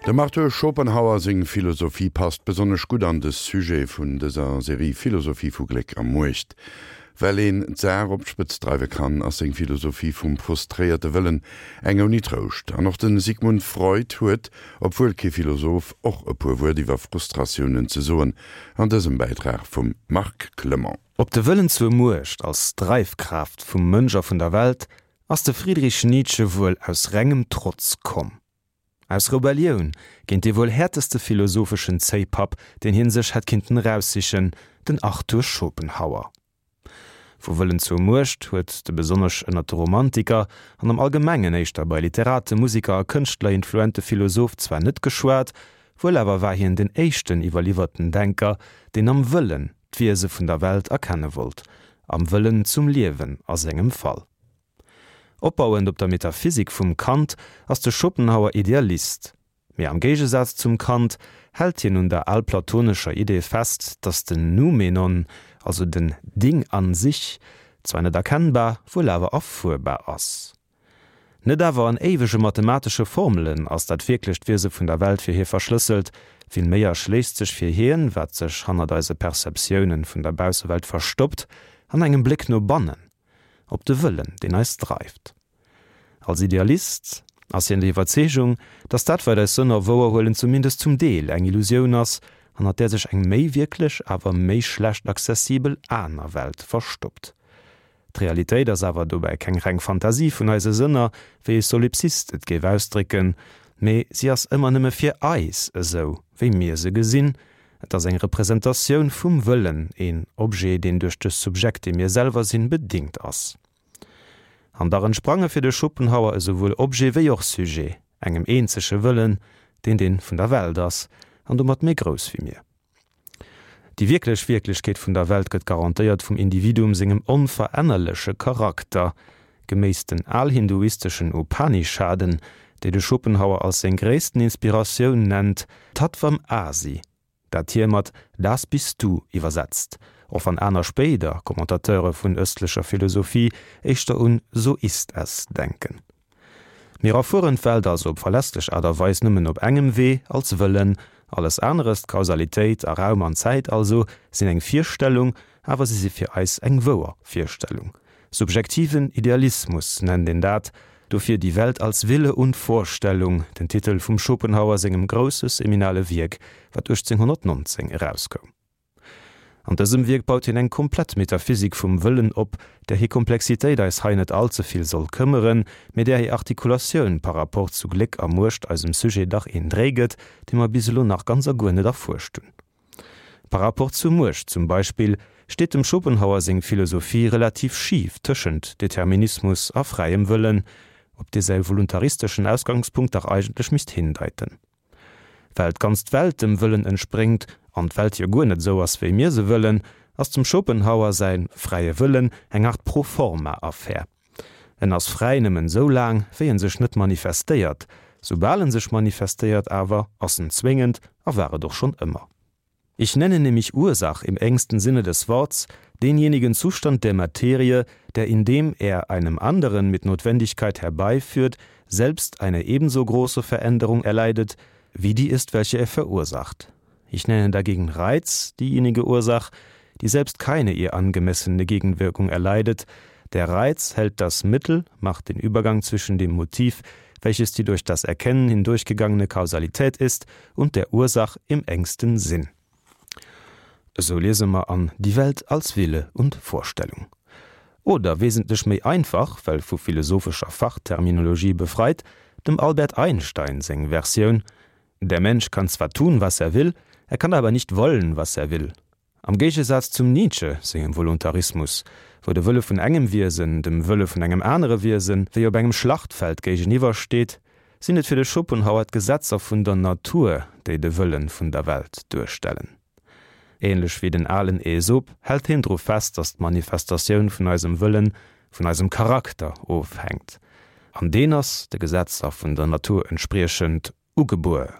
Dem Arthur Schopenhauer seng Philosophie passt besonnesch gutt an de Sujet vun dëser Serie Philosophie vu Gléck a Muecht. Well een d'Saach op d'Spëtz dreiwe kann, ass seng Philosophie vum frustréierte Wëllen eng ouni Trouscht. An och de Sigmund Freud huet, obwuel kee Philosoph, och e puer Wuert iwwer Frustratiounen ze soen an dësem Bäitrag vum Marc Clement. Op de Wëllen zur Muecht als Dreifkraaft vum Mënsch a vun der Welt ass de Friedrich Nietzsche wuel aus rengem Trotz komm. Aus Rebellioun géint dee wuel häerteste philosopheschen Zéipapp, deen hien sech hätt kinnten eraussichen, den Arthur Schopenhauer. Vu Wëllen zur Muecht huet de besonnesch ënnert de Romantiker an am Allgemengen éischter bei Literaten, Musiker a Kënschtler influente Philosoph zwar net geschwat, wuel awer war hien den éischten iwwerliwwerten Denker, deen am Wëllen d'Wiese vun der Welt erkenne wollt, am Wëllen zum Liewen a sengem Fall. Opbauend op der Metaphysik vum Kant ass de Schopenhauer Idealist. Mee am Géigesaz zum Kant hält hien un der alplatonescher Idee fest, datt den Noumenon, also den Ding an sich, zwar net erkennbar, wuel awer erfuerbar ass. Net awer an éiwege mathematesche Formelen ass dat wierklecht Wiese vun der Welt fir hie verschlësselt, villméi erschléisst sech fir hien, wat sech hannert eise Perceptiounen vun der Baussewelt verstoppt, an engem Bléck no bannen. op de Wëllen, deen eis dreift. Als Idealist ass hien der Iwwerzeegung, datt dat, wat eis Sënner wouerhuelen, zumindest zum Deel eng Illusioun ass, hannert där sech eng méi wierklech, awer méi schlecht accessibel aner Welt verstoppt. D'Realitéit ass awer dobäi keng reng Fantasie vun eise Sënner, wéi e Solipsist et géif ausdrécken, mee si ass ëmmer nëmme fir eis esou, wéi mir se gesinn, Et ass eng Representatioun vum Wëllen, een Objet, deen duerch de Subjekt, dee mir selwer sinn, bedingt ass. An dach entsprange fir de Schopenhauer esouwuel Objet wéi och Sujet engem eenzege Wëllen, deen dee vun der Welt ass, an domat méi grouss wéi mir. Déi wierklech Wierklechkeet vun der Welt gëtt garantéiert vum Individuum sengem onverännerleche Charakter, Geméiss den alhinduisteschen Upanishaden, déi de Schopenhauer als seng gréissten Inspiratioun nennt, Tattvam Asi, dat hie mat Das bist du iwwersetzt, och wann aner spéider Commentateure vun ëstlecher Philosophie éischter un So ist es denken. Mir erfueren d'Welt also op verlässlech Aart a Weis nëmmen op engem Wee, als Wëllen. Alles aneres, d'Kausalitéit a Raum an Zäit also, sinn eng Virstellung, awer si si fir eis eng wouer Virstellung. Subjektiven Idealismus nennt een dat, dofir Die Welt als Wille und Vorstellung, den Titel vum Schopenhauer sengem grousse seminale Wierk, wat 1819 erauskoum. An dësem Wierk baut hien eng komplett Metaphysik vum Wëllen op, där hir Komplexitéit eis hei net all ze vill soll këmmeren, mee där hir Artikulatioun par rapport zu Gléck a Muecht eisem Sujet dach een Dréi gëtt, dee mer bis elo nach ganz a guer net erfuerscht hunn. Par rapport zur Muecht zum Beispill steet dem Schopenhauer seng Philosophie relativ schif tëschent Determinismus a fräiem Wëllen, op dee säi voluntaristeschen Ausgangspunkt dach eigentlech misst hindeiten. Well d'ganz Welt dem Wëllen entspréngt, an d'Welt jo guer net esou ass wéi mir se wëllen, ass dem Schopenhauer säi fräie Wëllen eng Art Pro-forma-Affär. En ass fräi nëmmen esou laang, wéi en sech net manifestéiert. Soubal en sech manifestéiert awer, ass en zwéngend a war et och schonn ëmmer. Ich nenne nämlich Ursach im engsten Sinne des Worts denjenigen Zustand der Materie, der indem er einem anderen mit Notwendigkeit herbeiführt, selbst eine ebenso große Veränderung erleidet, wie die ist, welche er verursacht. Ich nenne dagegen Reiz diejenige Ursach, die selbst keine ihr angemessene Gegenwirkung erleidet. Der Reiz hält das Mittel, macht den Übergang zwischen dem Motiv, welches die durch das Erkennen hindurchgegangene Kausalität ist, und der Ursach im engsten Sinn. Esou liese mer an Die Welt als Wille und Vorstellung. Oder wesentlech méi einfach, well vu philosophescher Fachterminologie befreit, dem Albert Einstein seng Versioun, Der Mensch kann zwar tun, was er will, er kann aber nicht wollen, was er will. Am Géigesaz zum Nietzsche sengem Voluntarismus, wou de Wëlle vun engem Wiesen dem Wëlle vun engem anere Wiesen wéi op engem Schlachtfeld géigeniwwer steet, sinn et fir de Schopenhauer d'Gesetzer vun der Natur, déi de Wëlle vun der Welt duerstellen. Ähnlech wéi den alen Aesop hält hien dru fest, datt d'Manifestatioun vun eisem Wëllen vun eisem Charakter ofhänkt, an deen ass, de Gesetzer vun der Natur entspriechend, ugebuer.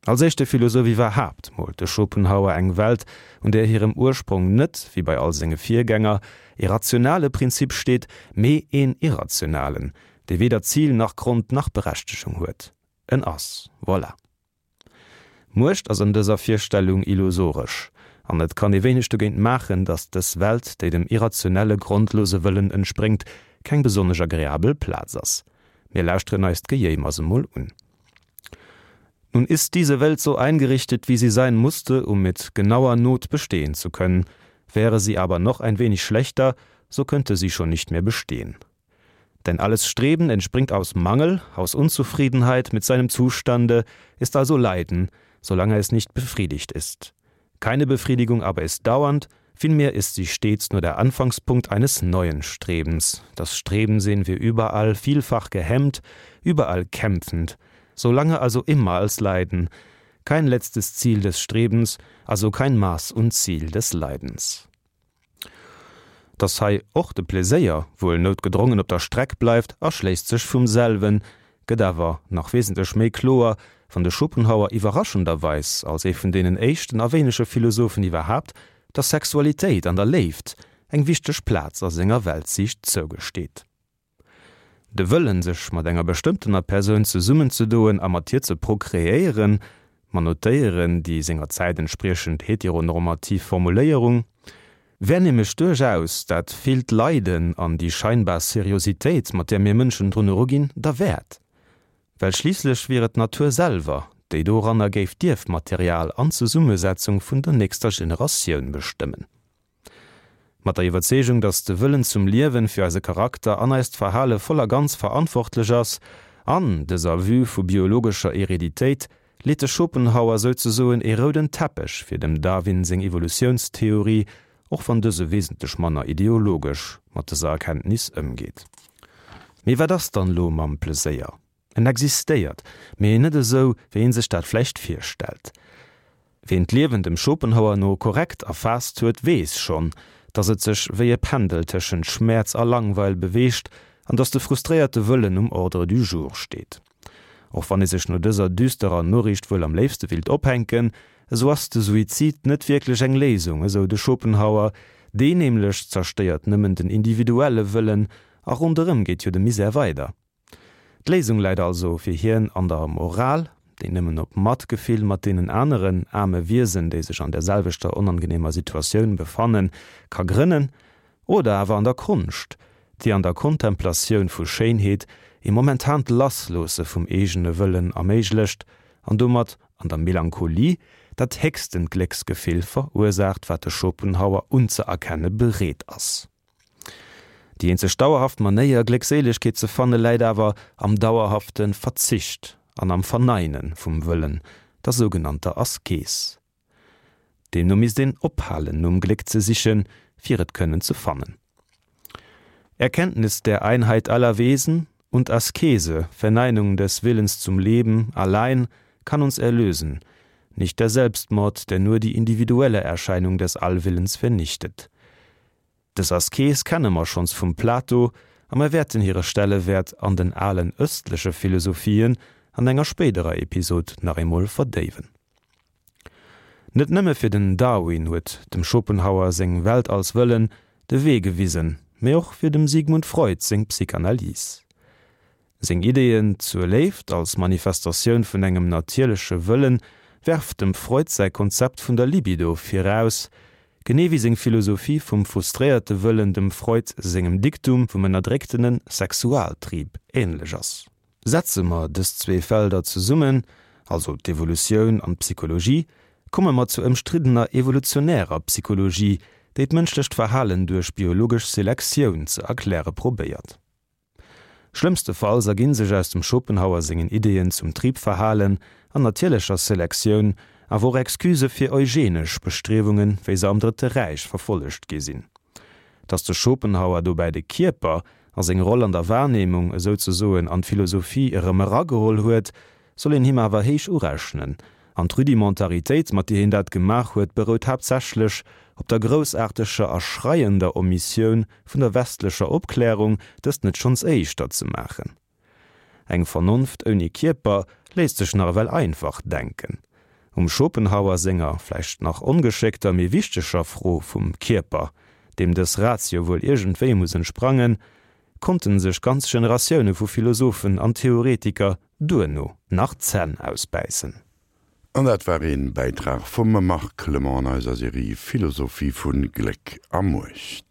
Als éischte Philosoph iwwerhaapt moolt de Schopenhauer eng Welt, un där hirem Ursprong net, wéi bei all senge Virgänger, ee rationale Prinzip steet, mee een irrationalen, dee weder Zil nach Grond nach Berechtegung huet. En ass. Voilà. Muecht ass an dëser Virstellung illusoresch, an et kann ee wéineg dogéint maachen, datt dës Welt, déi dem irrationelle, grondlose Wëllen entspréngt, keng besonnesch agreabel Plaz ass. Mir lauschteren eis d'Gejéimers emol un. Nun ist diese Welt so eingerichtet, wie sie sein musste, um mit genauer Not bestehen zu können. Wäre sie aber noch ein wenig schlechter, so könnte sie schon nicht mehr bestehen. Denn alles Streben entspringt aus Mangel, aus Unzufriedenheit mit seinem Zustande, ist also Leiden, solange es nicht befriedigt ist. Keine Befriedigung aber ist dauernd, vielmehr ist sie stets nur der Anfangspunkt eines neuen Strebens. Das Streben sehen wir überall vielfach gehemmt, überall kämpfend, solange also immer als Leiden, kein letztes Ziel des Strebens, also kein Maß und Ziel des Leidens. Dass hei och de Pleséier wuel noutgedrongen op der Streck bleift, erschléisst sech vum selwen, gëtt awer nach wesentlech méi kloer, wann de Schopenhauer iwwerraschenderweis als ee vun deenen éischten a wéinege Philosophen iwwerhaapt der Sexualitéit an der Léift eng wichteg Plaz a senger Weltsiicht zougesteet. De Wëllen, sech mat enger bestëmmtener Persoun zesummenzedoen a mat hir ze prokreéieren, mer notéieren déi senger Zäit entspriechend heteronormativ Formuléierung, wär nämlech duerchaus dat villt Leiden an déi scheinbar Seriositéit, mat där mir Mënschen drun eruginn, derwäert. Well schliisslech wier et d'Natur selwer, déi doranner géif d'Ierfmaterial an d'Zesummesetzung vun der nächster Generatioun bestëmmen. Mat der Iwwerzeegung, datt de Wëllen zum Liewen fir eise Charakter an eist Verhale voll a ganz verantwortlech ass, an dëser Vue vu biologescher Hereditéit, leet de Schopenhauer souzesoen ee rouden Teppech fir dem Darwin seng Evolutiounstheorie, och wann dëse wesentlech manner ideologesch mat dëser Erkenntnis ëmgeet. Mee wat ass dann elo mam Pleséier? En existéiert, mee net esou, wéi een sech dat vläicht virstellt. Ween d'Liewen dem Schopenhauer no korrekt erfaasst huet, weess schonn, datt et sech wéi e Pendel tëschent Schmäerz a Langweil beweegt an datt de frustréierte Wëllen um Ordre du jour steet. Och wann ee sech no dëser düsterer Noriicht wuel am léifste willt ophänken, esou ass de Suizid net wierklech eng Léisung, esou de Schopenhauer. Deen nämlech zerstéiert nëmmen den individuelle Wëllen a ronderëm geet jo de Misär weider. D'Léisung läit also fir hien an der Moral, déi nëmmen op Matgefill mat deenen aneren aarme Wiesen, déi sech an der selwechter onangenehmer Situatioun befannen, ka grënnen, oder awer an der Konscht, déi an der Kontemplatioun vu Schéinheet ee momentant Lassloosse vum eegene Wëllen erméiglecht an domat an der Melancholie dat héchstent Glécksgefill verursaacht, wat de Schopenhauer unzëerkenne bereet ass. Déi eenzeg dauerhaft Manéier, Gléckséilegkeet ze fanne läit awer am dauerhafte Verzicht an am Verneine vum Wëllen, der sougenannter Askes. Deemno misst een ophalen nom Gléck ze sichen, fir et kënnen ze fannen. Erkenntnis der Einheit aller Wesen und Askese, Verneinung des Willens zum Leben, allein kann uns erlösen, nicht der Selbstmord, der nur die individuelle Erscheinung des Allwillens vernichtet. Dës Askes kenne mer schonns vum Plato a mer wäerten hire Stellewäert an den alen ëstleche Philosophien an enger spéiderer Episod nach eemol verdéiwen. Net nëmme fir den Darwin huet dem Schopenhauer seng Welt als Wëllen de Wee gewisen, mee och fir dem Sigmund Freud seng Psychanalyse. Seng Ideeën zur Léift als Manifestatioun vun engem natierleche Wëllen werft dem Freud säi Konzept vun der Libido viraus, genee wéi seng Philosophie vum frustréierte Wëllen dem Freud sengem Diktum vum ënnerdrécktene Sexualtrieb änlech ass. Setze mer dës zwee Felder zesummen, also d'Evolutioun an d'Psychologie, komme mer zur ëmstriddener evolutionärer Psychologie, déi d'mënschlecht Verhalen duerch biologesch Selektioun ze erkläre probéiert. Schlëmmstefalls erginn sech aus dem Schopenhauer sengen Ideeën zum Triebverhalen an natierlecher Selektioun awer och Excusë fir eugenesch Bestriewungen, wéi se am Drëtte Räich verfollegt gi sinn. Datt de Schopenhauer dobäi de Kierper a seng Roll an der Wahrnehmung esouzesoen an d'Philosophie erëm erageholl huet, soll een him awer héich urechnen, an d'Rudimentaritéit, mat deer hien dat gemaach huet, berout haaptsächlech op der groussaarteger a schreiender Omissioun vun der westlecher Opklärung, dëst net schonns éischter ze maachen. Eng Vernonft ouni Kierper léisst sech nach ewell einfach denken. Um Schopenhauer senger, vläicht nach ongeschéckter, mee wichteger Fro vum Kierper, deem dës Ratio wuel iergendwéi muss entsprangen, konnten sech ganz Generatioune vu Philosophen an Theoretiker duerno nach d'Zänn ausbäissen. An dat war een Bäitrag vum Marc Clement an eiser Serie Philosophie vun Gléck a Muecht.